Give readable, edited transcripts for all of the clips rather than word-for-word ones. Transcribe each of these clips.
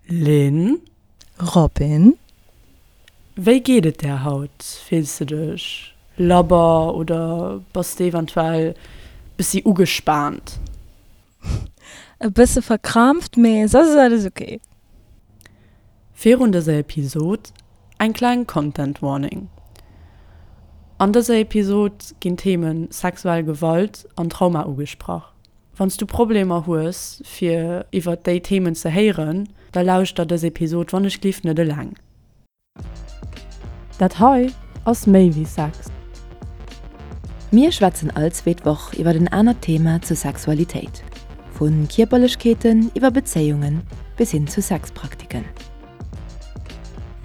Lynn? Robin? Wéi geet et där haut? Fills de dech labber oder bass de eventuell bessi ugespaant? E bësse verkrampft, mee soss ass alles ok. Virun dëser Episod eng kleng Content Warning. An dëser Episod ginn d'Themen sexuell Gewalt an Trauma ugesprach. Wann s du Problemer hues fir iwwert déi Themen ze héieren, da lauschter dës Episod wannechglift net eleng. Dat hei ass méi wéi Sex. Mir schwätzen all zweet Woch iwwert en anert Thema zur Sexualitéit, vu Kierperlechkeeten iwwer Bezéiungen bis hin zu Sexpraktiken.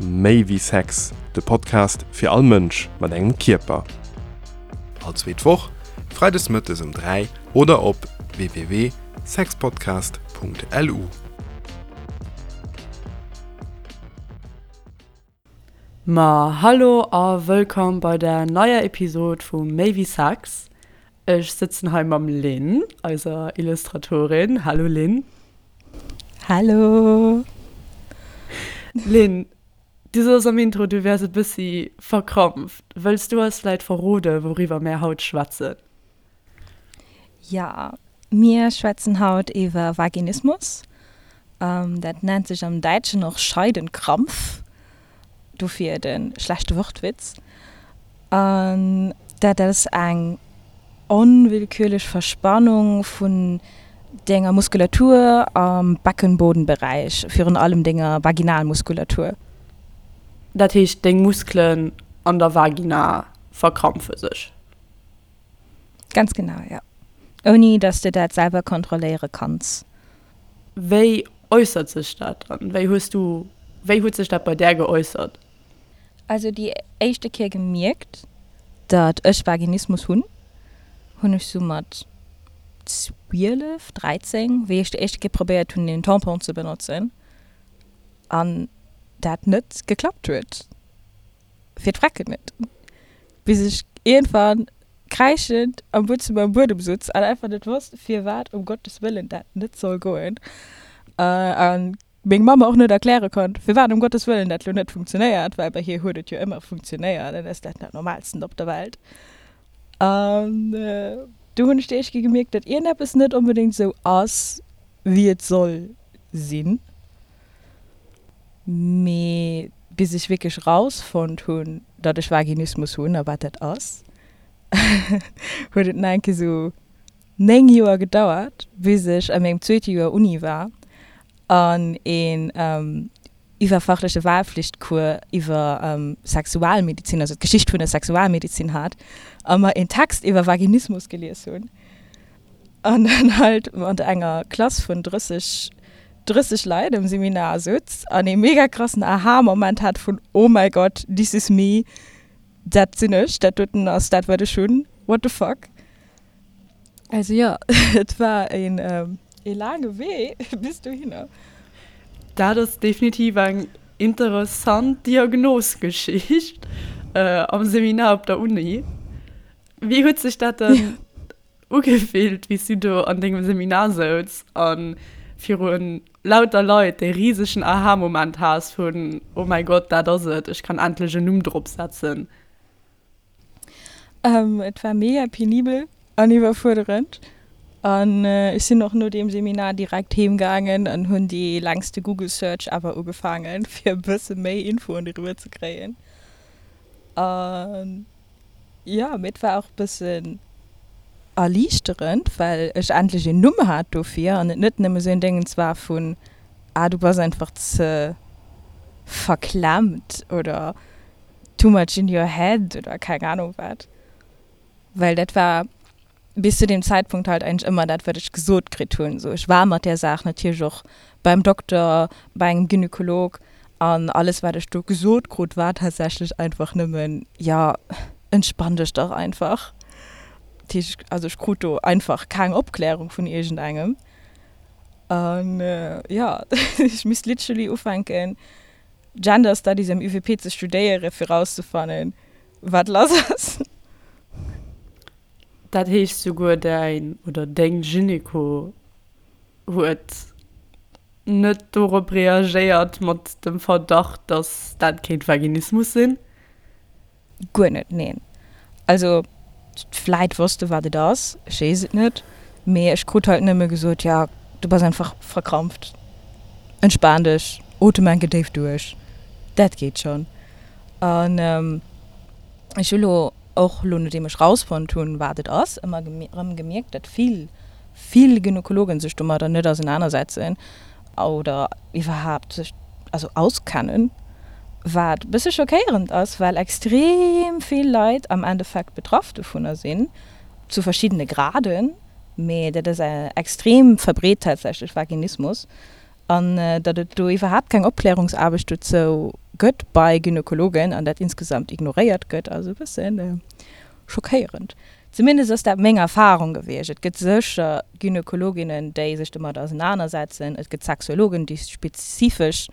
Méi wéi Sex, de Podcast fir all Mënsch mat engem Kierper. All zweet Woch, freides mëttes um 3 oder op www.sexpodcast.lu. Ma hallo a wëllkomm bei der neier Episod vu Méi wéi Sex. Ech sëtzen hei mam Lynn, eiser Illustratorin. Hallo Lynn. Hallo! Lynn, du soss am Intro, du wäers e bëssi verkrampft. Wëlls du eis vläit verrode wouriwwer mär haut schwätzen? Jo, mir schwätzen haut iwwer Vaginismus. Dat nennt sech am Däitschen och Scheidenkrampf. Dofir de schlechte Wortwitz. An dat ass eng onwillkürlech Verspannung vun denger Muskulatur am Beckenbodenberäich, virun allem denger Vaginalmuskulatur. Dat heescht, deng Muskelen an der Vagina verkrampfe sech? Ganz genau, jo. Ouni dass de dat selwer kontrolléiere kanns. Wéi äussert sech dat dann? Wéi hues du, wéi huet sech dat bei där geäussert? Also déi éischte Kéier gemierkt, datt ech Vaginismus hunn, hunn ech sou mat 12, 13, wéi ech déi éischte Kéier probéiert hunn een Tampon ze benotzen an dat net geklappt huet. Fir d'Frecken net. Bis ech iergendwann kräischend am Buedzëmmer um Buedem sutz an einfach net wosst, firwat um Gottes Wëllen dat net soll goen. A meng Mamm och net erkläre konnt, firwat um Gottes Wëllen dat lo net funktionéiert, well bei hir huet et jo ëmmer funktionéiert an ass dat dat Normalsten op der Welt. An do hunn ech déi éischt Kéier gemierkt, datt iergendeppes net onbedéngt esou ass, wéi et soll sinn. Mee bis ech wierklech rausfonnt hunn, datt ech Vaginismus hunn a wat dat ass, huet et nach eng Kéier sou 9 Joer gedauert, bis ech a mengem zweete Joer Uni war an een iwwerfachleche Wahlpflichtcours iwwer Sexualmedizin, also d'Geschicht vun der Sexualmedizin hat a mer een Text iwwer Vaginismus gelies hunn. An dann halt mat enger Klass vun 30, 30 Leit am Seminar sutz an ee mega krassen Aha-Moment hat vun Oh my God, this is me, dat sinn ech, dat doten ass dat wat ech hunn, what the fuck. Also jo, et war een ee laange Wee bis dohinner. Dat ass definitiv eng interessant Diagnosgeschicht am Seminar op der Uni. Wéi huet sech dat dann ugefillt, wéi s du do an dengem Seminar souz a viru lauter Leit dee risegen Aha-Moment has vun, Oh mäi Gott, dat ass et, ech kann endlech en Numm drop setzen? Et war mega penibel an iwwerfuerderend. An ech sinn och no deem Seminar direkt heem gaangen an hunn déi längste Google Search ever ugefaangen, fir e bësse méi Infoen doriwwer ze kréien. An Jo, mee et war och bëssen erliichterend, well ech endlech een Numm hat dofir an et net nëmme sou een Déngens war vun, ah du bass einfach ze verklemmt oder too much in your head oder keng Ahnung wat. Well dat war bis zu deem Zäitpunkt halt eigentlech ëmmer dat, wat ech gesot kritt hunn. Sou, ech war mat där Saach natierlech och beim Dokter, bei engem Gynekolog an alles, wat ech do gesot krut, war tatsächlech einfach nëmmen, Jo, entspann dech dach einfach. Dat heescht, also ech krut do einfach keng Opklärung vun iergendengem. An jo, ech misst literally ufänken, Gender Studies am UWP ze studéieren, fir rauszefannen, wat lass ass. Dat heescht souguer däin oder deng Gyneko huet. Net dorop reagéiert mat dem Verdacht, dass dat kéint Vaginismus sinn? Guer net, neen. Also vläit wosst e wat et ass, ech weess et net, mee ech krut halt nëmme gesot, jo du bass einfach verkrampft, entspan dech, otem enke déif duerch, dat geet schonn. An ech hu lo och lo nodeem ech rausfonnt hunn wat et ass, ëmmer erëm gemierkt, datt vill, vill Gynekologen sech domadder net ausenanersetzen oder iwwerhaapt sech also auskennen, wat e bësse schockéierend ass, well extrem vill Leit am Endeffekt betraff dovunner sinn, zu verschiddene Graden, mee dat ass extrem verbreet tatsächlech, Vaginismus. An datt et do iwwerhaapt keng Opklärungsaarbecht dozou gëtt bei Gynekologen an dat insgesamt ignoréiert gëtt, ass e bësse schockéierend. Zumindest ass dat meng Erfarung gewiescht. Et gëtt sécher Gynekologinnen, déi sech domat ausenanersetzen. Et gëtt Sexuologen, déi spezifesch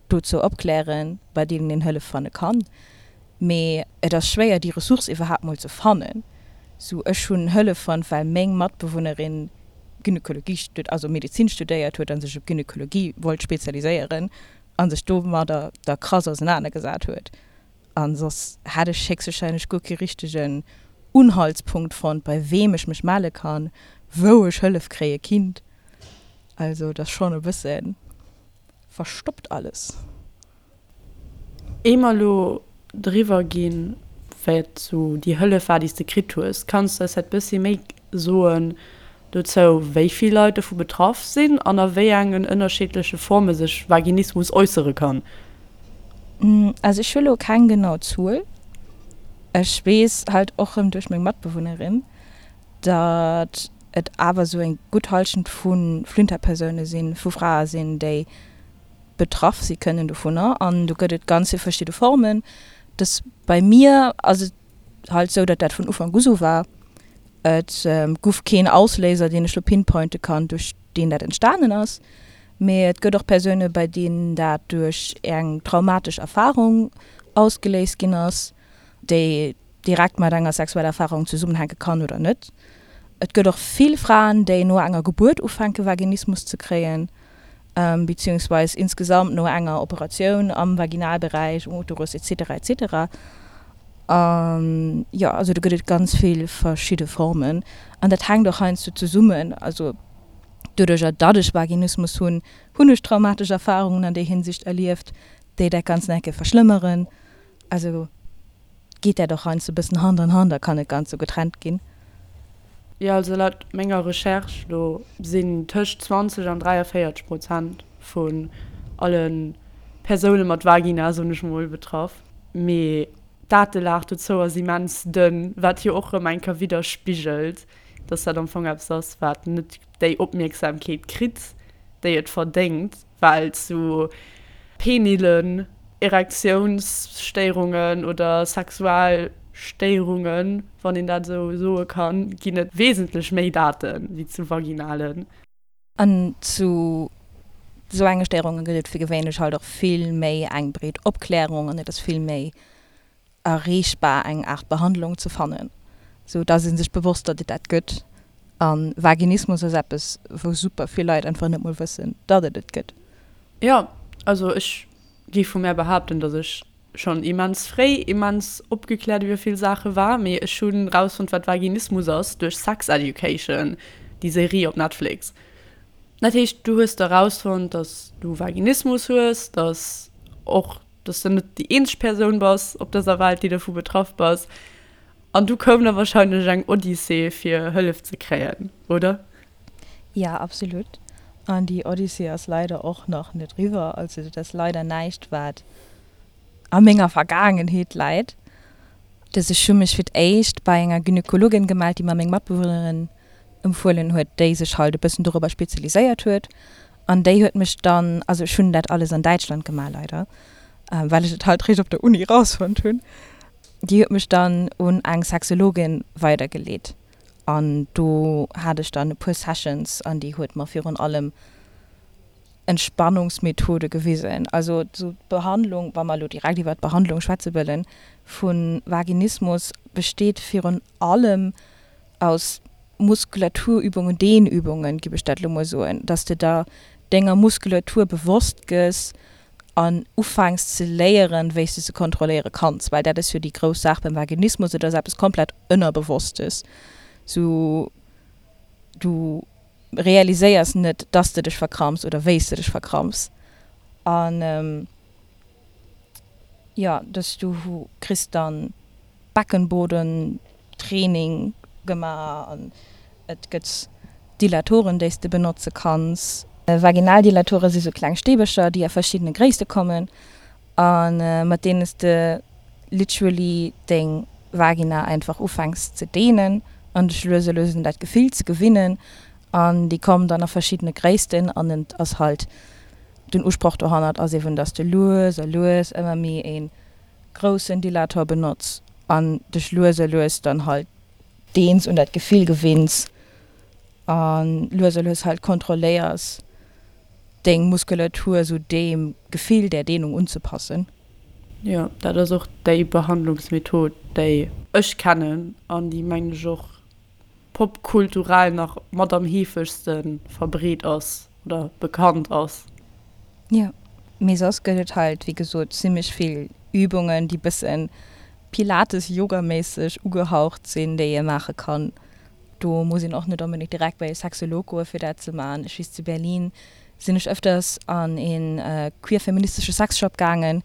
dozou opklären, bei deenen een Hëllef fanne kann. Mee et ass schwéier, déi Ressource iwwerhaapt mol ze fannen. Sou, ech hunn Hëllef fonnt, well meng Matbewunnerin Gynekologie, also Medezin studéiert huet a sech op Gynekologie wollt spezialiséieren a sech domadder da krass ausenanergesat huet. A soss hätt ech héchstwahrscheinlech guer kee richtegen Unhaltspunkt fonnt, bei weem ech mech melle kann, wou ech Hëllef kréie kinnt. Also et ass schonn e bësse verstoppt alles. Ier mer elo driwwer ginn, wat sou déi Hëllef war, déi s de kritt hues, kanns de eis vläicht bëssi méi soen dozou, wéi vill Leit dovu betraff sinn an a wéi engen ënnerschiddleche Forme sech Vaginismus äussere kann? Also ech hu lo keng genau Zuel. Ech weess halt och rëm duerch meng Matbewunnerin, datt et awer sou eng gutt Hallschent vu Flinterpersoune sinn, vu Frae sinn, déi betraff si kënnen dovunner an do gëtt et ganz vill verschidde Formen. Dës bei mir ass et halt sou, datt dat vun Ufank u sou war. Et guff keen Ausléiser, deen ech lo pinpointe kann, duerch deen dat entstanen ass, mee et gëtt och Persoune bei deenen dat duerch eng traumatesch Erfarung ausgeléist ginn ass, déi direkt mat enger sexueller Erfarung zesummenhänke kann oder net. Et gëtt och vill Fraen, déi no enger Gebuert ufänke Vaginismus ze kréien, beziehungsweis insgesamt no enger Operatioun am Vaginalberäich, um Uterus etc. Etc. An jo, also do gëtt et ganz vill verschidde Formen an dat hänkt och heiansdo zesummen. Also doduercher, datt ech Vaginismus hunn, hunn ech traumatesch Erfarungen an där Hinsicht erlieft, déi dat Ganzt nach eng Kéier verschlëmmeren. Also geet dat och heiansdo e bëssen Hand an Hand a kann net ganz sou getrennt ginn. Jo, also laut menger Recherche do sinn tëscht 20 an 43 Prozent vun alle Persoune mat Vagina, soen ech mol, betraff. Mee d'Datelag dozou ass immens dënn, wat jo och rëm eng Kéier widderspigelt, dass dat am Fong eppes ass, wat net déi Opmierksamkeet kritt, déi et verdéngt. Well zu penilen Erektiounsstéierungen oder Sexualstéierungen, wann een dat esou soe kann, ginn et wesentlech méi Date wéi zu vaginalen. An zu esou enge Stéierunge gëtt et fir gewéinlech halt och vill méi eng breet Opklärung an et ass vill méi erreechbar eng Aart Behandlung ze fannen, sou dass ee sech bewosst, datt et dat gëtt. A Vaginismus ass eppes, wou super vill Leit einfach net mol wëssen, datt et et gëtt. Jo, also ech géif vu mär behaapten, datt ech schonn immens fréi immens opgekläert iwwer vill Saache war, mee ech hunn rausfonnt, wat Vaginismus ass, duerch Sex Education, déi Serie op Netflix. Dat heescht, du hues da rausfonnt, datt du Vaginismus hues, datt och dass de net déi eenzeg Persoun bass op dëser Welt, déi dovu betraff bass. An du koum da wahrscheinlech eng Odyssee, fir Hëllef ze kréien, oder? Ja, absolut. An déi Odyssee ass leider och nach net riwwer. Also dat ass leider näischt, wat a menger Vergaangenheet läit. Dass ech hu mech fir d'éischt bei enger Gynekologin gemellt, déi mer meng Matbewunnerin empfuelen huet, déi sech halt e bëssen dorobber spezialiséiert huet. An déi huet mech dann, also ech hunn dat alles an Däitschland gemaach leider, well ech et halt réischt op der Uni rausfonnt hunn, déi huet mech dann un eng Sexologin weidergeleet. An do hat ech dann e puer Sessions an déi huet mer virun allem Entspannungsmethode gewisen. Also sou d'Behandlung, wa mer elo direkt iwwer d'Behandlung schwätze wëllen, vu Vaginismus besteet virun allem aus Muskulaturübungen, Dehnübungen, giff ech dat elo mol soen, dass de der. denger Muskulatur bewosst gëss an ufänks ze léieren, wéi s de se kontrolléiere kanns, well dat ass jo déi grouss Saach beim Vaginismus, et ass eppes komplett Ënnerbewosstes, sou du realiséiers net, dass de dech verkramps oder wéi s de dech verkramps an jo, dass du kriss dann Beckenboden Training gemaach an et gëtt Dilatoren déi s de benotze kanns. Vaginaldilatore si sou kleng Stäbercher déi a verschiddene Gréisste kommen a mat deene s de literally deng Vagina einfach ufänks ze dehnen an dech lues a lues un dat Gefill ze gewinnen an déi kommen dann a verschiddene Gréissten an et ass halt den Usproch dohannert ass eben dass de lues a lues ëmmer méi ee groussen Dilator benotz an dech lues a lues dann halt deens, un dat Gefill gewinns a lues a lues halt kontrolléiers deng Muskulatur sou deem Gefill, där Dehnung unzepassen. Jo, dat ass och déi Behandlungsmethod, déi ech kennen an déi, mengen ech, och popkulturell nach mat am heefegste verbreet ass oder bekannt ass. Jo, mee soss gëtt et halt wéi gesot zimmlech vill Übungen, déi bëssen Pilates-Yoga-méisseg ugehaucht sinn, déi ee maache kann. Do muss een och net onbedéngt direkt bei e Sexolog goe fir dat ze maachen. Ech weess zu Berlin sinn ech ëfters an een queer-feministesche Sexshop gaangen,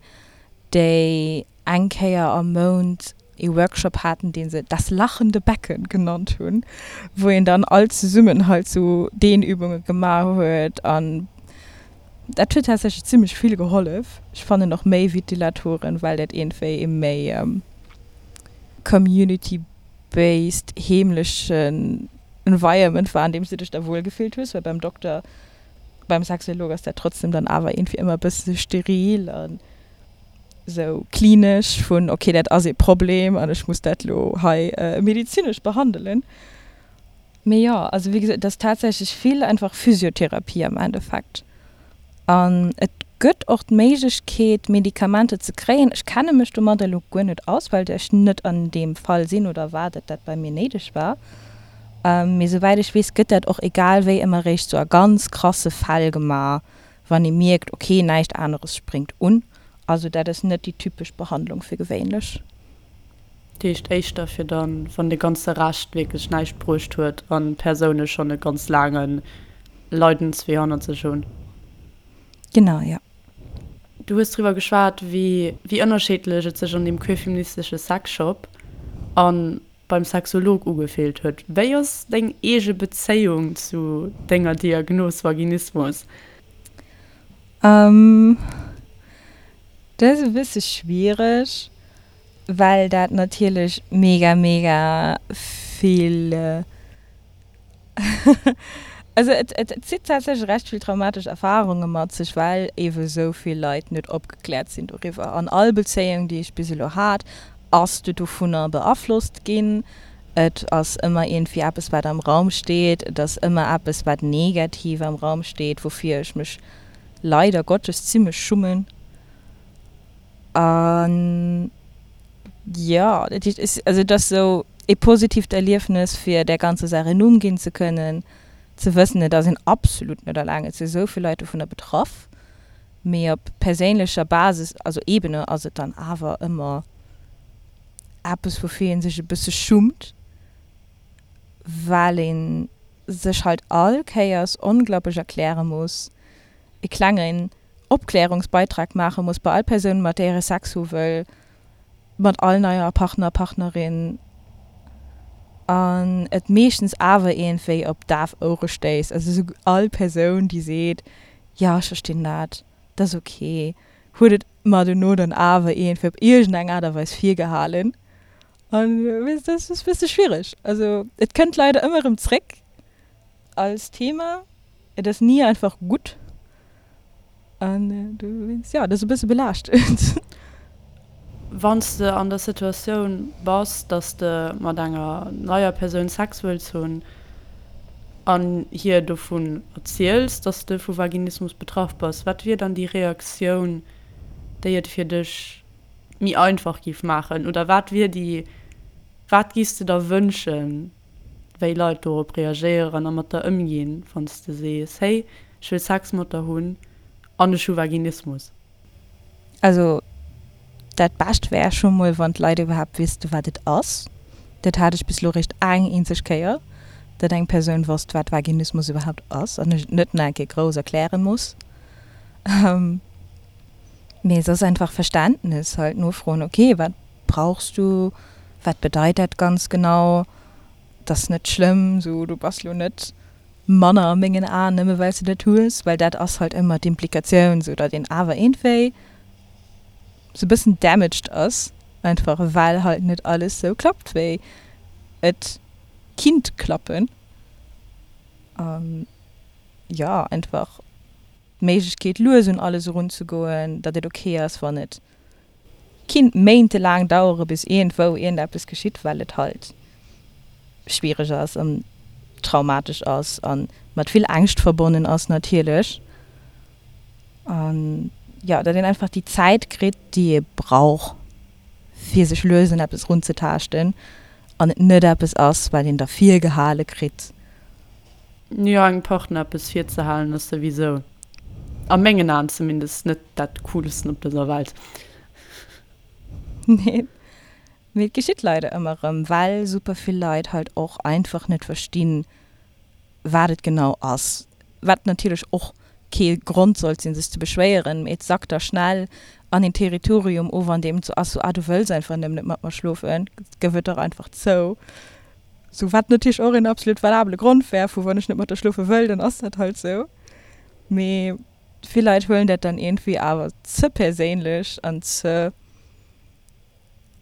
déi eng Kéier am Mount ee Workshop haten, dee se Das lachende Becken genannt hunn, wou een dann all zesummen halt sou Dehnübunge gemaach huet an dat huet tatsächlech zimmlech vill gehollef. Ech fannen och méi wéi d'Dilatoren, well dat iergendwéi ee méi community-based, heemlechen Environment war, an deem s du dech da wuel gefillt hues, well beim Dokter, beim Sexolog ass dat trotzdem dann awer iergendwéi ëmmer e bësse steril an. sou klinesch vun ok dat ass ee Problem an ech muss dat lo hei medezinesch behandelen. Mee jo, also wéi gesot, et ass tatsächlech vill einfach Physiotherapie am Endeffekt an et gëtt och d'Méiglechkeet Medikamenter ze kréien. Ech kenne mech domadder elo guer net aus, well ech net an deem Fall sinn oder war, datt dat bei mir néideg war. Mee souwäit ech weess, gëtt dat och egal wéi ëmmer réischt sou a ganz krasse Fäll gemaach, wann ee mierkt, ok, näischt aneres spréngt un. Also dat ass net déi typesch Behandlung fir gewéinlech. Dat heescht éischter fir dann, wann de ganze Rescht wierklech näischt bruecht huet an d'Persoune schonn e ganz laange Leidenswee hannert sech hunn. Genau, jo. Du hues driwwer geschwat, wéi ënnerscheedlech et sech an deem queerfeministesche Sexshop an beim Sexolog ugefillt huet. Wéi ass deng eege Bezéiung zu denger Diagnos Vaginismus? Dat ass e bësse schwiereg, well dat natierlech mega mega vill Also et zitt tatsächlech recht vill traumatesch Erfarunge mat sech, well eebe sou vill Leit net opgekläert sinn doriwwer. An all Bezéiung, déi ech bis elo hat, ass du dovunner beaflosst ginn. Et ass ëmmer iergendwéi eppes, wat am Raum steet. Et ass ëmmer eppes, wat negativ am Raum steet, woufir ech mech leider Gottes zimmlech schummen. An jo, dat heescht, ech, also et ass esou ee positiivt Erliefnes, fir där ganzer Saach en Numm ginn ze kënnen, ze wëssen, et ass een absolut net alleng, et si sou vill Leit dovunner betraff, mee op perséinlecher Basis, also Ebene, ass et dann awer ëmmer eppes, woufir ee sech e bësse schummt, well ee sech halt all Kéiers onglaublech erkläre muss, e klengen Opklärungsbeitrag maache muss bei all Persoun, mat där ee Sex hu wëll, mat all neier Partner, Partnerin, an et meeschtens awer iergendwéi op daf Ouere stéisst. Also esou all Persoun, déi seet, jo ech verstinn dat, dat ass ok, huet et mer dono dann awer iergendwéi op iergendeng Aart a Weis virgehalen. An dat ass e bësse schwiereg. Also et kënnt leider ëmmer erëm zréck als Thema. Et ass ni einfach gutt. An dowéinst, jo, et ass e bësse belaaschtend. Wann s de an der Situatioun bass, dass de mat enger neier Persoun Sex wëlls hunn an hir dovun erziels, dass de vu Vaginismus betraff bass, wat wier dann déi Reaktioun, déi et fir dech méi einfach giff maachen? Oder wat wier déi, wat giffs de der wënschen, wéi Leit dorop reagéieren a mat der ëmginn, wann s de sees, hey, ech. Ech wëll Sex mat der hunn an ech hu Vaginismus. Also dat Bescht wär scho mol, wann d'Leit iwwerhaapt wüsste wat et ass. Dat hat ech bis elo réischt eng eenzeg Kéier, datt eng Persoun wosst wat Vaginismus iwwerhaapt ass an ech et net nach eng Kéier grouss erkläre muss. Mee soss einfach Verständnis, halt nofroen, ok wat brauchs du, wat bedeit dat ganz genau, et ass net schlëmm, sou du bass lo net manner a mengen Aen nëmme well s de dat hues, well dat ass halt ëmmer d'Implikatioun, sou datt een awer iergendwéi sou bëssen damaged ass, einfach well halt net alles sou klappt wéi et kinnt klappen. An jo, einfach d'Méiglechkeet lues un alles erunzegoen, datt et ok ass wann et kinnt méintelaang dauere bis iergendwou iergendeppes geschitt, well et halt schwiereg ass an traumatesch ass a mat vill Ängscht verbonnen ass natierlech. An jo, datt een einfach déi Zäit kritt, déi ee brauch, fir sech lues un eppes erunzetaaschten an et net eppes ass, wat een da virgehale kritt. Jo, engem Partner eppes virzehalen ass souwisou, a mengen Aen zumindest, net dat coolsten op dëser Welt. Nee, mee et geschitt leider ëmmer erëm, well super vill Leit halt och einfach net verstinn, wat et genau ass. Wat natierlech och kee Grond sollt sinn, sech ze beschwéieren, mee et sackt da schnell an een Territorium of, an deem et sou ass, sou, ah, du wëlls einfach nëmmen net mat mer schlofen, gëff et dach einfach zou. Sou, wat natierlech och een absolut valabele Grond wär, vu wann ech net mat der schlofe wëll, dann ass dat halt sou. Mee vill Leit huelen dat dann iergendwéi awer ze perséinlech an ze,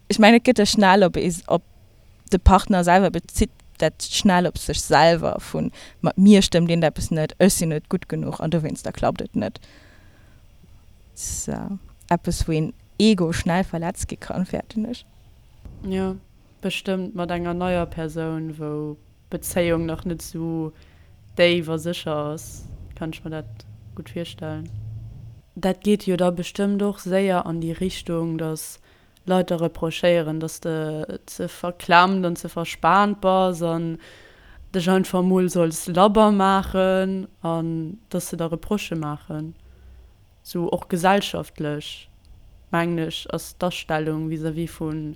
ech mengen et gëtt da schnell op ee, op de Partner selwer bezitt dat schnell op sech selwer vun, mat mir stëmmt iergendeppes net, ech sinn net gutt genuch an dowéinster klappt et net. Ass eppes wou een Ego schnell verletzt gi kann, fäerten ech. Jo. Bestëmmt mat enger neier Persoun, wou d'Bezéiung nach net sou déif a sécher ass, kann ech mer dat gutt virstellen. Dat geet jo da bestëmmt och séier an déi Richtung, dass Leit der reprochéieren, dass de ze verklemmt an ze verspaant bass an dech einfach mol solls labber maachen an dass se der Reprochë maachen. Sou och gesellschaftlech, mengen ech, ass d'Astellung vis-à-vis vu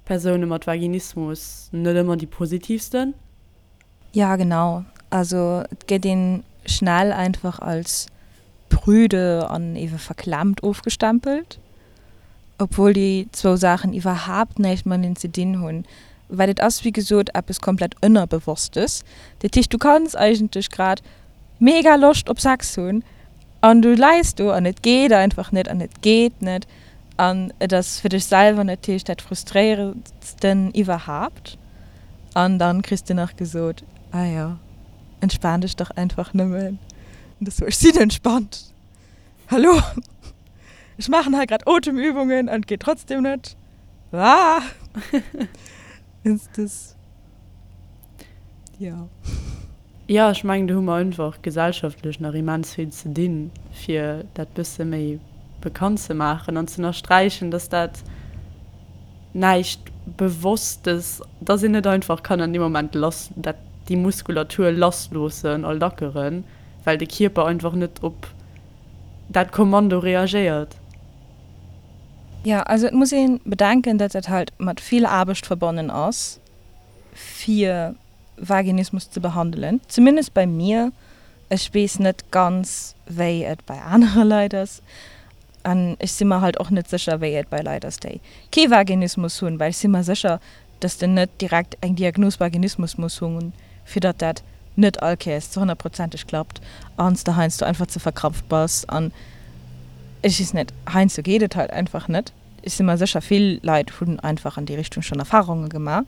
Persoune mat Vaginismus net ëmmer déi positivsten. Ja, genau. Also et gëtt een schnell einfach als prüde an ewe verklemmt ofgestempelt, obwuel déi zwou Saachen iwwerhaapt näischt mateneen ze dinn hunn, well et ass wéi gesot eppes komplett Ënnerbewosstes. Dat heescht, du kanns eigentlech grad mega Loscht op Sex hunn An du läis do an et geet einfach net an et geet net an et ass fir dech selwer natierlech dat frustréierendsten iwwerhaapt. An dann kriss de nach gesot, ah jo, entspan dech dach einfach nëmmen. An du sou, ech sinn entspannt, hallo, ech maachen hei grad Otemübungen an et geet trotzdem net. Ah! Das, jo. Jo, ech mengen, do hu mer einfach gesellschaftlech nach immens vill ze dinn, fir dat bësse méi bekannt ze maachen an ze ënnersträichen, dass dat näischt Bewosstes, dass een net einfach kann an deem Moment lass, dat, déi Muskulatur lassloossen a lackeren, well de Kierper einfach net op dat Kommando reagéiert. Jo, also et muss ee bedenken, datt dat halt mat vill Aarbecht verbonnen ass, fir Vaginismus ze behandelen. Zumindest bei mir. Ech weess net ganz, wéi et bei anere Leit ass. An ech si mer halt och net sécher, wéi et bei Leit ass, déi kee Vaginismus hunn, well ech si mer sécher, dass de net direkt eng Diagnos Vaginismus muss hunn, fir datt dat net all Kéiers ze honnertprozenteg klappt an s de heiansdo einfach ze verkrampft bass an ech weess net, heiansdo geet et halt einfach net. Ech si mer sécher, vill Leit hunn einfach an déi Richtung schonn Erfarunge gemaach,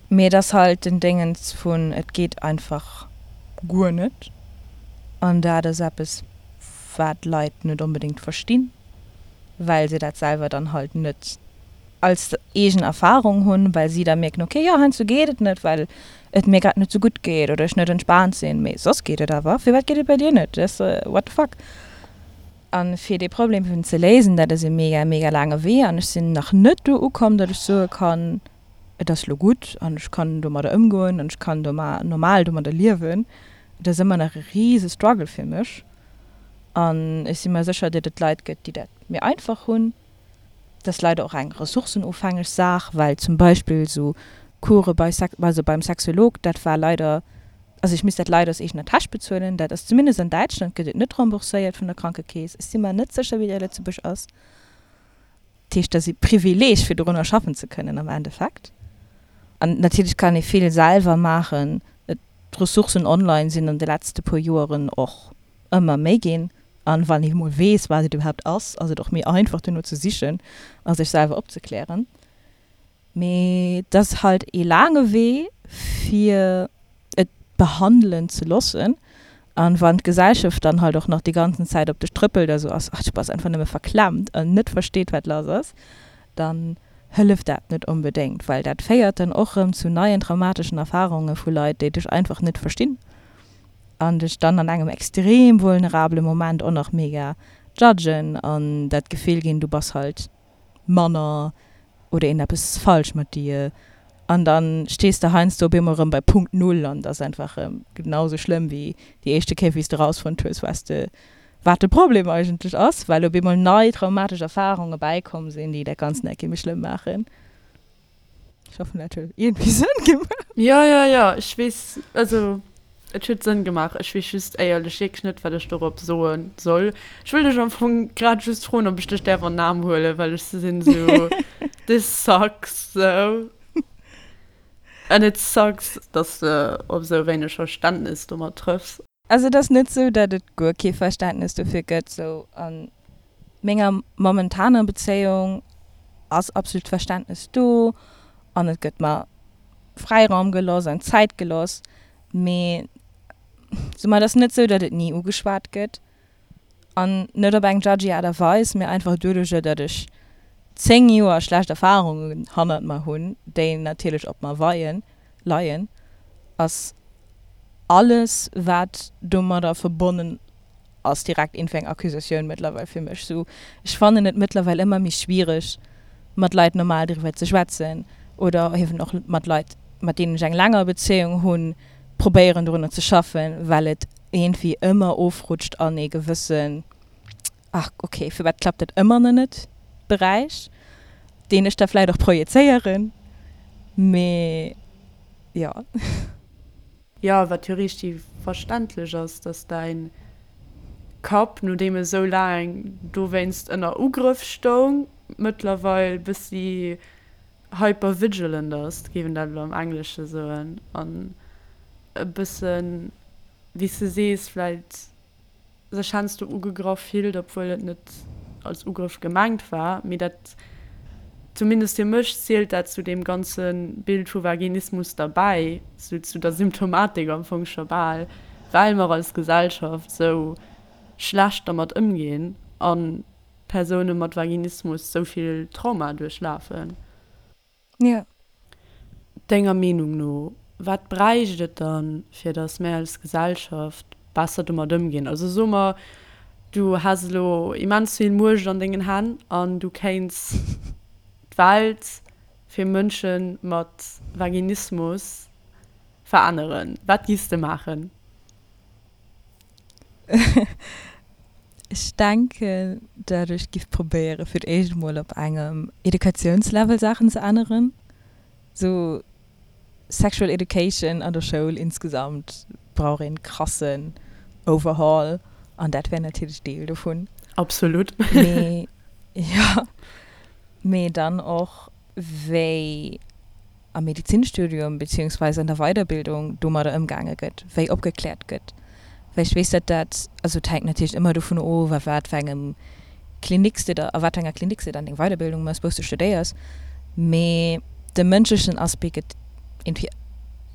mee et ass halt den Déngens vun et geet einfach guer net an dat ass eppes, wat Leit net onbedéngt verstinn, well se dat selwer dann halt net als eegen Erfahrung hunn, well si da mierken, ok, jo, heiansdo geet et net, well et mir grad net sou gutt geet oder ech net entspaant sinn, mee soss geet et awer. Firwat geet et bei dir net? Dass, what the fuck? A fir dee Problem eben ze léisen, dat ass e mega, mega laange Wee an ech sinn nach net do ukomm, datt ech soe kann, et ass lo gutt an ech kann domadder ëmgoen an ech kann normal domadder liewen. Et ass ëmmer nach e rise Struggle fir mech an ech si mer sécher, datt et Leit gëtt, déi dat méi einfach hunn. Et ass leider och eng ressourcenofhängeg Saach, well zum Beispill esou Course bei Sex, also beim Sexolog, dat war leider, also ech misst dat leider aus eegener Täsch bezuelen. Dat ass zumindest an Däitschland gëtt et net rembourséiert vun der Krankekeess. Ech si mer net sécher, wéi dat a Lëtzebuerg ass. Dat heescht, dat ass e Privileeg, fir dorunner schaffen ze kënnen am Endeffekt. An natierlech kann ee vill selwer maachen. D'Ressourcen online sinn an de letzte puer Joeren och ëmmer méi ginn. An wann ee mol weess, wat et iwwerhaapt ass, ass et och méi einfach duerno ze sichen a sech selwer opzeklären. Mee et ass halt ee laange Wee fir et behandelen ze loossen. An wann d'Gesellschaft dann halt och nach déi ganzen Zäit op dech trëppelt a sou ass, ach du bass einfach nëmme verklemmt an net versteet wat lass ass, dann hëlleft dat net onbedéngt, well dat féiert dann och rëm zu neien traumateschen Erfarunge vu Leit, déi dech einfach net verstinn an dech dann an engem extrem vulnerabele Moment och nach mega judgen an dat Gefill ginn, du bass halt manner oder een eppes falsch mat dir an dann stees de heiansdo op eemol rëm bei Punkt Null an et ass einfach rëm genau sou schlëmm wéi déi éischte Kéier wéi s de rausfonnt hues was de wat de Problem eigentlech ass, well op eemol nei traumatesch Erfarunge bäikomm sinn, déi dat Ganzt nach eng Kéier méi schlëmm maachen. Ech hoffen dat huet iergendwéi Sënn gemaach. Jo, jo, jo, ech weess, also et huet Sënn gemaach. Ech weess just éierlech wierklech net, wat ech dorop soe soll. Ech wëll dech am Fong grad just froen, ob ech dech däerf an den Aarm huelen, well ech sinn esou, this sucks so. And it sucks, dass de op esou wéineg Verständnis domat trëffs. Also et ass net sou, datt et guer kee Verständnes dofir gëtt. Sou a menger momentaner Bezéiung ass absolut Verständnes do an et gëtt mer Fräiraum gelooss an Zäit gelooss. Mee sou mer et ass net sou, datt et ni ugeschwat gëtt an net op eng judgy Aart a Weis, mee einfach doduercher, datt ech 10 Joer schlecht Erfarungen hannert mer hunn, déi natierlech op mer weien, leien, ass alles wat domadder verbonnen ass direkt iergendwéi eng Accusatioun mëttlerweil fir mech. Sou, ech fannen et mëttlerweil ëmmer méi schwiereg mat Leit normal driwwer ze schwätzen oder eben och mat Leit mat deenen ech eng länger Bezéiung hunn, probéieren dorunner ze schaffen, well et iergendwéi ëmmer ofrutscht an ee gewëssen ach ok, firwat klappt dat ëmmer nach net Beräich, deen ech da vläit och projezéieren, mee jo. Jo, wat jo richteg verständlech ass, dass däin Kapp, nodeem e sou laang dowéinst ënner Ugrëff stoung, mëttlerweil bëssi hypervigilant ass, géif een dat elo am Englesche soen, an e bëssen, wéi s de sees, vläit sech heiansdo ugegraff fillt, obwuel et net als Ugrëff gemengt war. Mee dat, zumindest fir mech, zielt dat zu deem ganze Bild vu Vaginismus derbäi, sou zu der Symptomatik am Fong scho bal, well mer als Gesellschaft sou schlecht dermat ëmginn a Persoune mat Vaginismus sou vill Trauma duerchlafen. Jo. Denger Meenung no, wat bräicht et dann, fir datt mär als Gesellschaft besser domat ëmginn? Also so mer, du häss elo immens vill Muecht an dengen Hänn an du kéints d'Welt fir Mënsche mat Vaginismus veränneren. Wat giffs de maachen? Ech denken, dat ech giff probéieren, fir d'éischt emol op engem Educatiounslevel Saachen ze änneren. Sou Sexual Education an der Schoul insgesamt brauch een krassen Overhaul an dat wär natierlech Deel dovun. Absolut. Mee jo, mee dann och wéi am Medizinstudium beziehungsweise an der Weiderbildung domadder ëmgaange gëtt, wéi opgekläert gëtt. Well ech weess, datt dat, also et hänkt natierlech ëmmer dovun of, a wat fir engem Klinik s de da, a wat fir enger Klinik s de dann deng Weiderbildung méchs, wou s de studéiers, mee de mënschlechen Aspect gëtt iergendwéi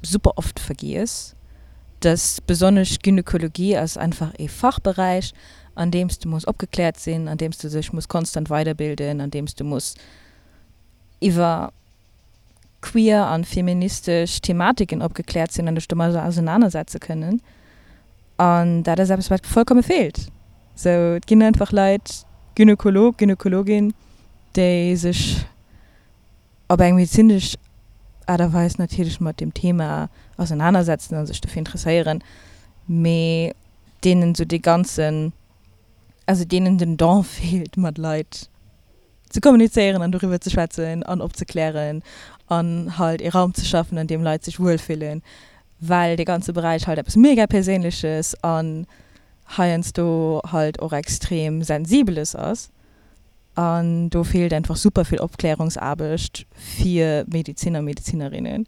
super oft vergiess, dass besonnesch Gynekologie ass einfach ee Fachberäich, an deem s de muss opgekläert sinn, an deem s de dech muss konstant weiderbilden, an deem s de muss iwwer queer an feministesch Thematiken opgekläert sinn an dech domadder ausenanersetze kënnen. An dat ass eppes, wat vollkomme feelt. Sou, et ginn einfach Leit, Gynekolog, Gynekologin, déi sech op eng medezinesch Aart a Weis natierlech mat deem Thema ausenanersetzen a sech dofir interesséieren. Mee deenen esou dee ganzen, also deenen den Don feelt mat Leit ze kommunizéieren an doriwwer ze schwätzen an opzeklären an halt ee Raum ze schaffen an deem Leit sech wuel fillen, well dee ganze Beräich halt eppes mega Perséinleches an heiansdo halt och extrem Sensibeles ass. An do feelt einfach super vill Opklärungsaarbecht fir Medeziner, Medezinerinnen.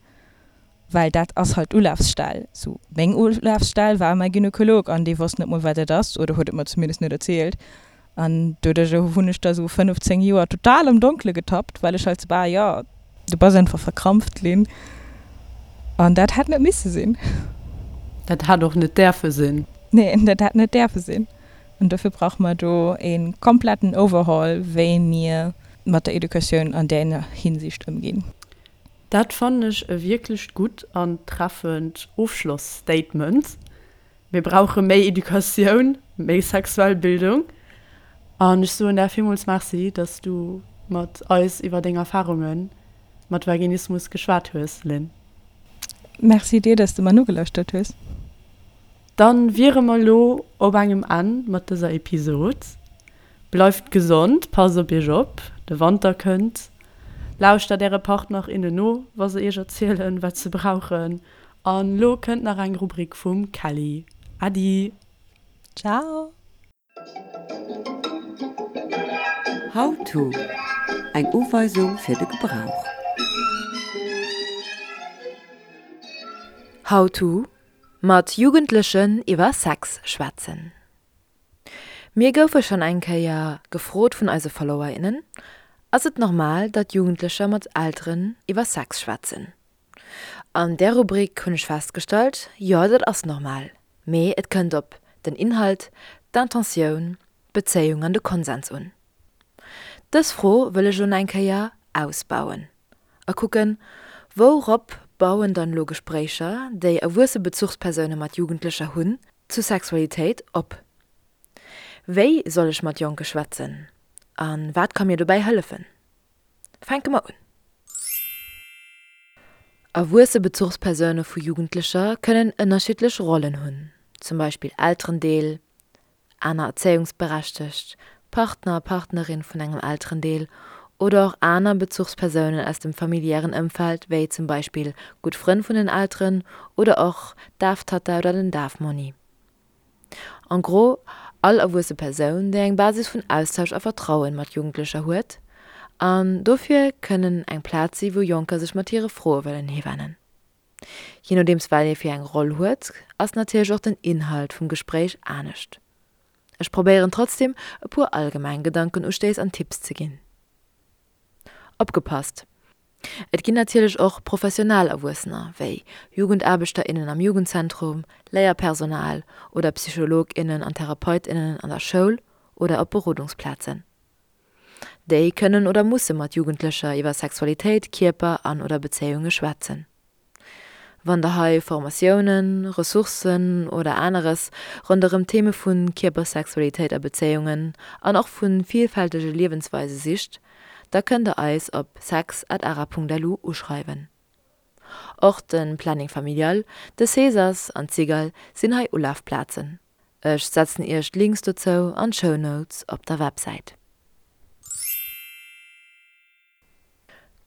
Well dat ass halt d'Ulafsstell. Sou, meng Ulafsstell war mäi Gynekolog an dee wosst net mol, wat et ass, oder huet et mer zumindest net erzielt. An doduerch hunn ech da sou 15 Joer total am Donkele getappt, well ech halt sou war, jo, du bass einfach verkrampft, Lynn. An dat hätt net misse sinn. Dat hätt och net däerfe sinn. Nee, dat hätt net däerfe sinn. An dofir brauche mer do e kompletten Overhaul, wéi mir mat der Educatioun an där Hinsicht ëmginn. Dat fannen ech e wierklecht gutt an treffend Ofschloss-Statement. Mir brauche méi Educatioun, méi sexuell Bildung. An ech soen där villmools Merci, dass du mat eis iwwer deng Erfarunge mat Vaginismus geschwat hues, Lynn. Merci dir, dass de mer nogelauschtert hues. Dann wiere mer lo op engem Enn mat dëser Episod. Bleift gesond, passt op iech op, de Wanter kënnt. Lauschtert äre Partner, innen no, wa se iech erzielen, wat se brauchen. An lo kënnt nach eng Rubrik vum Kelly. Äddi! Ciao! How to, Eng Uweisung fir de Gebrauch. How to, Mat Jugendlechen iwwer Sex schwätzen. Mir goufe schonn eng Kéier gefrot vun eise Follower, innen, Ass et normal, datt Jugendlecher mat Elteren iwwer Sex schwätzen? An där Rubrik hunn ech festgestallt, jo dat ass normal, mee et kënnt op den Inhalt, d'Intentioun, d'Bezéiung an de Konsens un. Dës Fro wëll ech elo nach eng Kéier ausbauen a kucken, Wourop bauen dann elo Gespréicher, déi erwuesse Bezuchspersoune mat Jugendlecher hunn, zu Sexualitéit op? Wéi soll ech mat Jonke schwätzen a wat ka mir dobäi hëllefen? Fänke mer un. Erwuesse Bezuchspersoune vu Jugendlecher kënnen ënnerschiddlech Rollen hunn, zum Beispill Elterendeel, aner Erzéiungsberechtegt, Partner, Partnerin vun engem Elterendeel oder och aner Bezuchspersounen aus dem familiären Ëmfeld, wéi zum Beispill gutt Frënn vun den Elteren oder och d'Daftatta oder den Dafmonni. En gros, all erwuesse Persoun, déi eng Basis vun Austausch a Vertrauen mat Jugendlecher huet, an dofir kënnen eng Plaz si wou Jonker sech mat hire Froe wëllen hiwennen. Je nodeems wat ee fir eng Roll huet, ass natierlech och den Inhalt vum Gespréich anescht. Ech probéieren trotzdem e puer allgemeng Gedankenustéiss an Tipps ze ginn. Opgepasst! Et ginn natierlech och professionell Erwuessener, wéi Jugendaarbechter, innen am Jugendzentrum, Léierpersonal oder Psycholog, innen an Therapeut, innen an der Schoul oder op Berodungsplazen. Déi kënnen oder musse mat Jugendlecher iwwer Sexualitéit, Kierper an oder Bezéiunge schwätzen. Wann der hei Formatiounen, Ressourcen oder aneres ronderëm d'Theme vu Kierper, Sexualitéit a Bezéiungen an och vu vielfältege Liewensweise sicht, da kënnt der eis op sex@ara.lu uschreiwen. Och de Planning Familial, de Cesas an d'Cigale sinn hei Ulafplazen. Ech setzen iech d'Links dozou an d'Show Notes op der Websäit.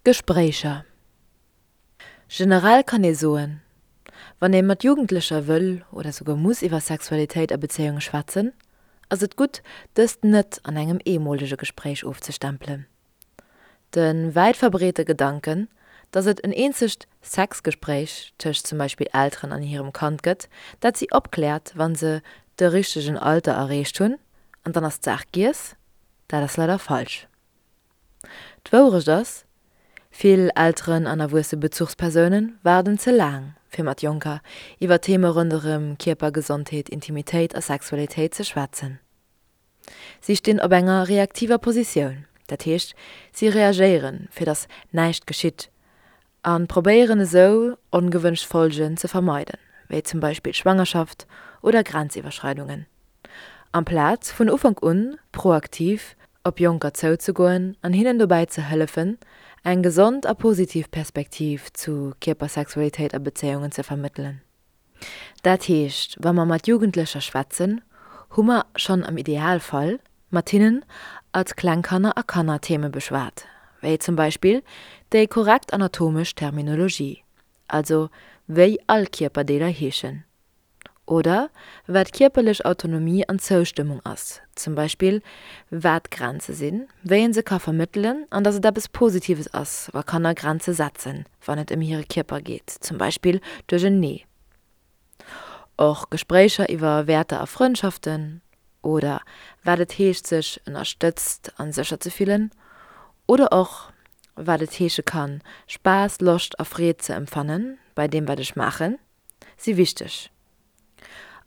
Gespréicher. Generell kann ee soen, wann ee mat Jugendlecher wëll oder souguer muss iwwer Sexualitéit a Bezéiunge schwätzen, ass et gutt, dëst net an engem eemolege Gespréich ofzestempelen. De wäit verbreete Gedanken, datt et en eenzegt Sexgespréich tëscht zum Beispill Elteren an hirem Kand gëtt, dat si opkläert, wa se de richtegen Alter erreecht hunn, an dann ass d'Saach giess, dat ass leider falsch. D'Wourecht ass, Vill Elteren an erwuesse Bezuchspersoune waarden ze laang, fir mat Jonker iwwer Theme ronderëm Kierper, Gesondheet, Intimitéit a Sexualitéit ze schwätzen. Si stinn op enger reaktiver Positioun, dat heescht, si reagéieren, fir datt näischt geschitt, a probéieren esou, ongewënscht Folgen ze vermeiden, wéi zum Beispill Schwangerschaft oder Grenziwwerschreidungen. Amplaz vun Ufank un proaktiv op Jonker zouzegoen an hinnen dobäi ze hëllefen, eng gesond a positiv Perspektiv zu Kierper, Sexualitéit a Bezéiungen ze vermëttelen. Dat heescht, wa mer mat Jugendlecher schwätzen, hu mer schonn am Idealfall mat hinnen als kleng Kanner a Kanner Theme beschwat, wéi zum Beispill déi korrekt anatomesch Terminologie, also wéi all Kierperdeeler heeschen. Oder wat kierperlech Autonomie an Zoustëmmung ass, zum Beispill wat Grenze sinn, wéi een se ka vermëttelen an dass et eppes Positives ass, wa Kanner Grenze setzen, wann et ëm hire Kierper geet, zum Beispill duerch en Nee. Och Gespréicher iwwer Wäerter a Frëndschaften oder wat et heescht sech ënnerstëtzt an sécher ze fillen oder och wat et heesche kann, Spaass, Loscht a Freed ze empfannen bei deem wat ech maachen. si wichteg.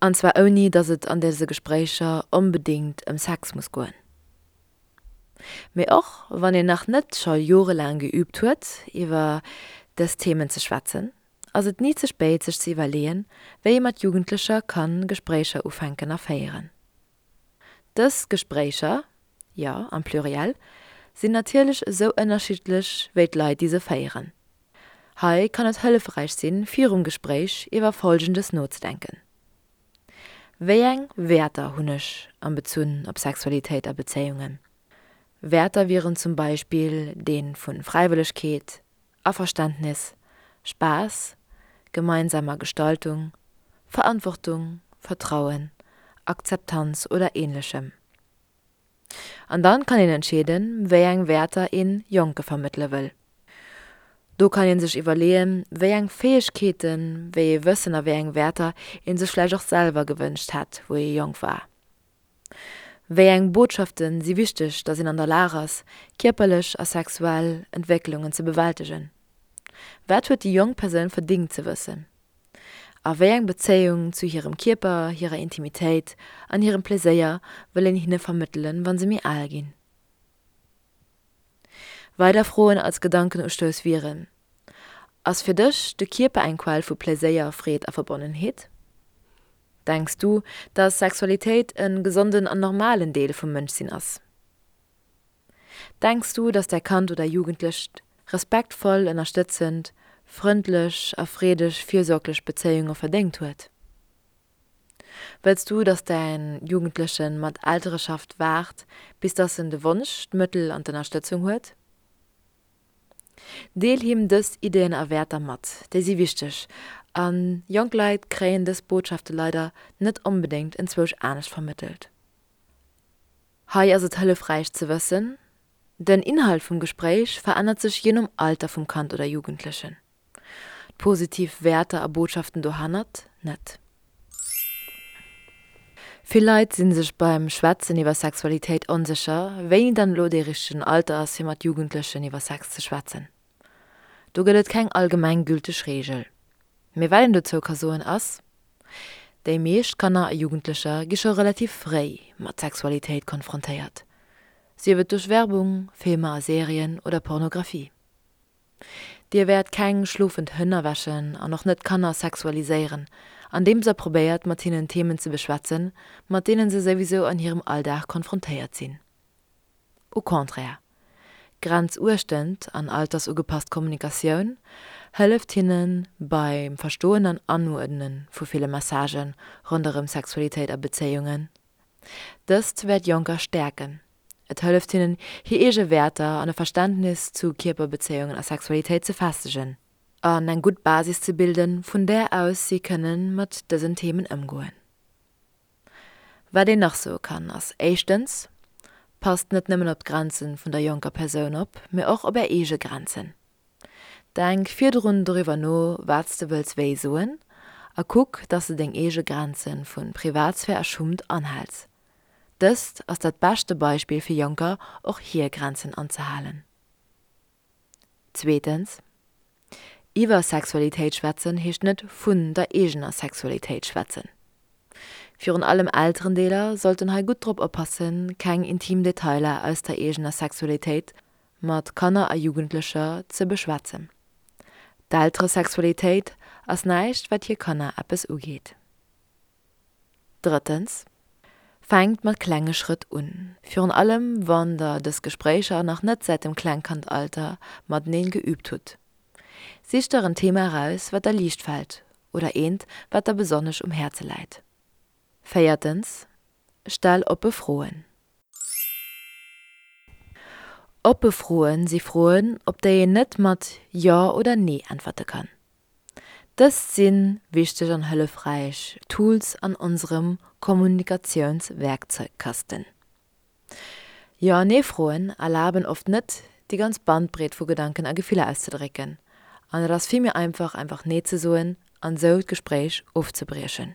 An zwar ouni, datt et an dëse Gespréicher onbedéngt ëm Sex muss goen. Mee och wann een nach net scho jorelaang geüübt huet, iwwer dës Themen ze schwätzen, ass et ni ze spéit sech ze iwwerleeën, wéi ee mat Jugendlecher ka Gespréicher ufänken a féieren. Dës Gespréicher, jo, am Pluriel, sinn natierlech esou ënnerschiddlech wéi d'Leit, déi se féieren. Hei kann et hëllefräich sinn, virum Gespréich iwwer Folgendes nozedenken, Wéi eng Wäerter hunn ech am Bezunn op Sexualitéit a Bezéiungen? Wäerter wieren zum Beispill dee vu Fräiwëllegkeet, Averständnis, Spaass, gemeinsamer Gestaltung, Verantwortung, Vertrauen, Akzeptanz oder Ähnlechem. An dann kann een entscheeden, wéi eng Wäerter een Jonke vermëttele wëll. Do kann een sech iwwerleeën, wéi eng Fäegkeeten, wéi ee Wëssen a wéi eng Wäerter een sech vläicht och selwer gewënscht hätt, wou ee jonk war. Wéi eng Botschaften si wichteg, dass een an der Lag ass, kierperlech a sexuell Entwécklungen ze bewältegen? Wat huet déi jonk Persoun verdingt ze wëssen? A wéi eng Bezéiung zu hirem Kierper, hirer Intimitéit an hirem Pleséier wëll een hinne vermëttelen, wa se méi al ginn? Weider Froen als Gedankenustouss wieren, Ass fir dech de Kierper eng Quell vu Pleséier, Freed a Verbonnenheet? Denks du, dass Sexualitéit e gesonden an normalen Deel vum Mënschsinn ass? Denks du, dass däi Kand oder Jugendlecht respektvoll, ënnerstëtzend, frëndlech a freedeg fürsorglech Bezéiunge verdéngt huet? Wëlls du, dass däin Jugendleche mat Eltereschaft waart, bis dass en de Wonsch, d'Mëttel an d'Ënnerstëtzung huet? Deel him dës Ideeën a Wäerter mat, déi si wichteg, a jonk Leit kréien dës Botschafte leider net onbedéngt enzwousch anescht vermëttelt. Hei ass et hëllefräich ze wëssen, Den Inhalt vum Gespréich verännert sech jee nom Alter vum Kand oder Jugendlechen. D'positiv Wäerter a Botschaften dohannert net. Vill Leit si sech beim Schwätzen iwwer Sexualitéit onsécher, wéini dann elo dee richtegen Alter ass fir mat Jugendlechen iwwer Sex ze schwätzen. Do gëtt et keng allgemeng gülteg Reegel. Mee wat een dozou ka soen ass, Déi meescht Kanner a Jugendlecher gi scho relativ fréi mat Sexualitéit konfrontéiert, sief et duerch Werbung, Filmer a Serien oder Pornografie. Dir wäert keng schlofend Hënn erwächen an och net Kanner sexualiséieren, andeems der probéiert mat hinnen Themen ze beschwätzen, mat deenen se souwisou an hirem Alldag konfrontéiert sinn. Au contraire, grenzuechtend an altersugepasst Kommunikatioun hëlleft hinne beim Verstoen an Anuerdne vu ville Messagë ronderëm Sexualitéit a Bezéiungen. Dëst wäert Jonker stäerken. Et hëlleft hinnen, hir eege Wäerter an e Verständnis zu Kierperbezéiungen a Sexualitéit ze festegen an eng gutt Basis ze bilden, vun där aus si kënne mat dësen Themen ëmgoen. Wat een nach soe kann, ass éischtens, Passt net nëmmen op d'Grenzen vun der jonker Persoun op, mee och op är eege Grenzen. Denk virdrun doriwwer no, wat s de wëlls wéi soen a kuck, dass de deng eege Grenze vu Privatsphär a Schummt anhäls. Dëst ass dat beschte Beispill fir Jonker, och hir Grenzen anzehalen. Zweetens, Iwwer Sexualitéit schwätzen heescht net vun der eegener Sexualitéit schwätzen. Virun allem Elterendeeler sollten hei gutt drop oppassen, keng intim Detailer aus der eegener Sexualitéit mat Kanner a Jugendlecher ze beschwätzen. D'Elteresexualitéit ass näischt wat hir Kanner eppes ugeet. Drëttens, Fänkt mat klenge Schrëtt un, virun allem wann der dës Gespréicher nach net säit dem Klengkandalter mateneen geüübt hutt. Sicht der en Thema eraus, wat der liicht fält. oder eent, wat der besonnesch um Häerze läit. Véiertens, Stell oppe Froen. Oppe Froen si Froen, op déi een net mat Jo oder Nee äntwerte kann. Dëst si wichteg an hëllefräich Tools an onserem Kommunikatiounswerkzeugkasten. Jo an Nee-Froen erlaben oft net, déi ganz Bandbreet vu Gedanken a Gefiller auszedrécken, an et ass vill méi einfach, einfach Nee ze soen an esou d'Gespréich ofzebriechen.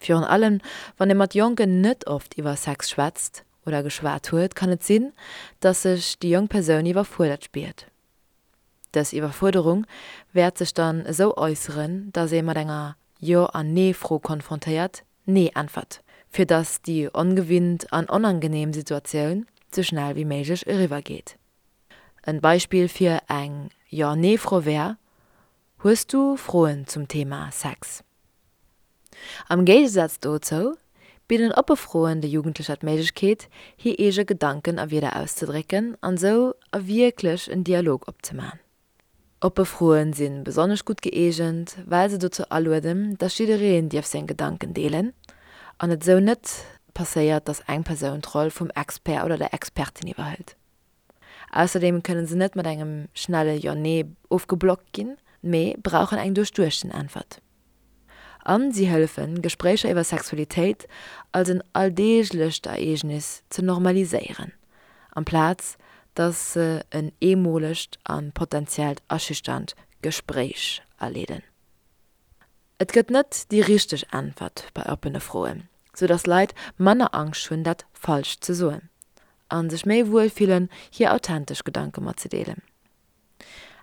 Virun allem wann ee mat Jonken net oft iwwer Sex schwätzt oder geschwat huet, kann et sinn, dass sech déi jonk Persoun iwwerfuerdert spiert. Dës Iwwerfuerderung wäert sech dann esou äusseren, dass ee mat enger Jo an Nee-Fro konfrontéiert Nee äntwert, fir dass déi ongewinnt an onangeneem Situatioun sou schnell wéi méiglech eriwwer geet. En Beispill fir eng Jo-Nee-Fro wär, Hues du Froen zum Thema Sex? Am Géigesaz dozou bidden oppe Froen de Jugendlecher d'Méiglechkeet, hir eege Gedanken a Wierder auszedrécken an esou a wierklech en Dialog opzemaachen. Oppe Froen si besonnesch gutt gëeegent, well se dozou alueden, dass jiddereen dierf seng Gedanken deelen an et esou net passéiert, dass eng Persoun d'Roll vum Expert oder der Expertin iwwerhëlt. Ausserdeem kënne se net mat engem schnelle Jo-Nee ofgeblockt ginn, mee brauchen eng duerchduechten Äntwert. A si hëllefen, Gespréicher iwwer Sexualitéit als en alldeeglecht Ereegnis ze normaliséieren, amplaz datt se en eemolegt a potentiellt erschüchternd Gespréich aleeden. Et gëtt net déi richteg Äntwert bei oppene Froen, sou datt Leit manner Angscht hunn, dat Falscht ze soen a sech méi wuel fillen, hir authentesch Gedanke matzedeelen.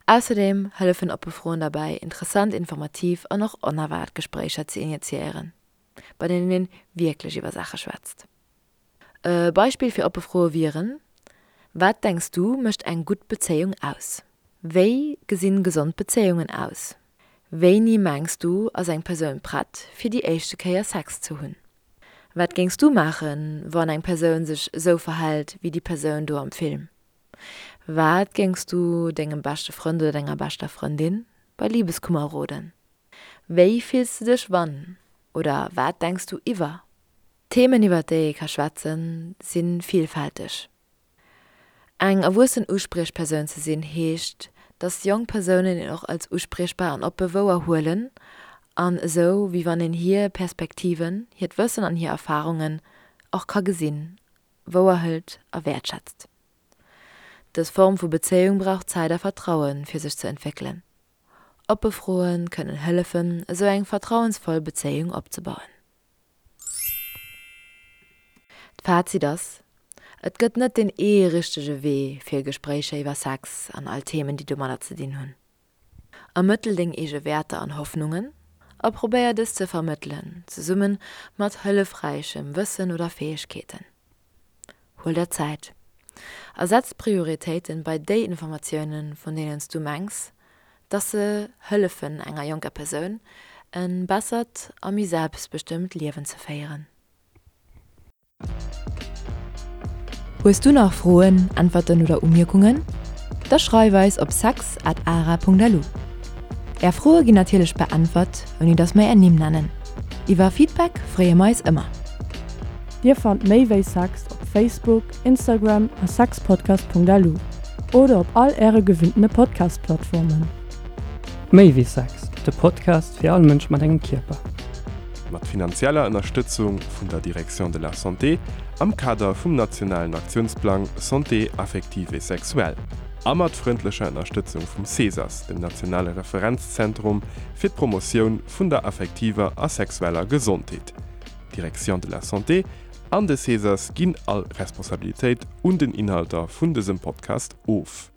Ausserdeem hëllefen oppe Froen derbäi, interessant, informativ an och onerwaart Gespréicher ze initiéieren, bei deenen een wierklech iwwer Saache schwätzt. E Beispill fir oppe Froe wieren, Wat denks du mécht eng gutt Bezéiung aus? Wéi gesinn gesond Bezéiungen aus? Wéini mengs du ass eng Persoun prett fir déi éischte Kéier Sex ze hunn? Wat géings du maachen, wann eng Persoun sech esou verhält wéi déi Persoun do am Film? Wat géings du dengem beschte Frënd oder denger beschter Frëndin bei Libeskummer roden? Wéi fills du dech wann oder wat denks du iwwer? D'Themen iwwer déi ee ka schwätzen, si villfälteg. Eng erwuessen Uspriechpersoun ze sinn heescht, datt jonk Persounen een och als uspriechbar an oppe wouer huelen an esou wéi wann een hir Perspektiven, hiert Wëssen an hir Erfarungen och ka gesinn, wouer hëlt a wäertschätzt. Dës Form vu Bezéiung brauch Zäit a Vertrauen, fir sech ze entwéckelen. Oppe Froe kënnen hëllefen, esou eng vertrauensvoll Bezéiung opzebauen. D'Fazit ass, Et gëtt net deen ee richtege Wee fir Gespréicher iwwer Sex an all Themen, déi domadder ze dinn hunn. Ermëttel deng eege Wäerter an Hoffnungen a probéier dës ze vermëttelen, zesumme mat hëllefräichem Wëssen oder Fäegkeeten. Huel der Zäit a setz d'Prioritéiten bei déi Informatiounen, vun deenen s du mengs, dass se hëllefen enger jonker Persoun e bessert a méi selbstbestëmmt Liewen ze féieren. Hues du nach Froen, Äntwerten oder Umierkungen? Da schreif eis op sex at ara.lu. Är Froe ginn natierlech beäntwert, ouni dass mer är Nimm nennen. Iwwer Feedback freeë mer eis ëmmer. Dir fannt méi wéi Sex op Facebook, Instagram a sexpodcast.lu oder op all äre gewinntene Podcast-Plattformen. Méi wéi Sex, de Podcast fir all Mënsch mat engem Kierper. Mat finanzieller Ënnerstëtzung vun der Direction de la Santé am Kader vum nationalen Aktiounsplang Santé affective et sexuelle a mat frëndlecher Ënnerstëtzung vum CESAS, dem nationale Referenzzentrum fir d'Promotioun vun der affektiver a sexueller Gesondheet. D'Direction de la Santé an de CESAS ginn all Responsabilitéit un den Inhalter vun dësem Podcast of.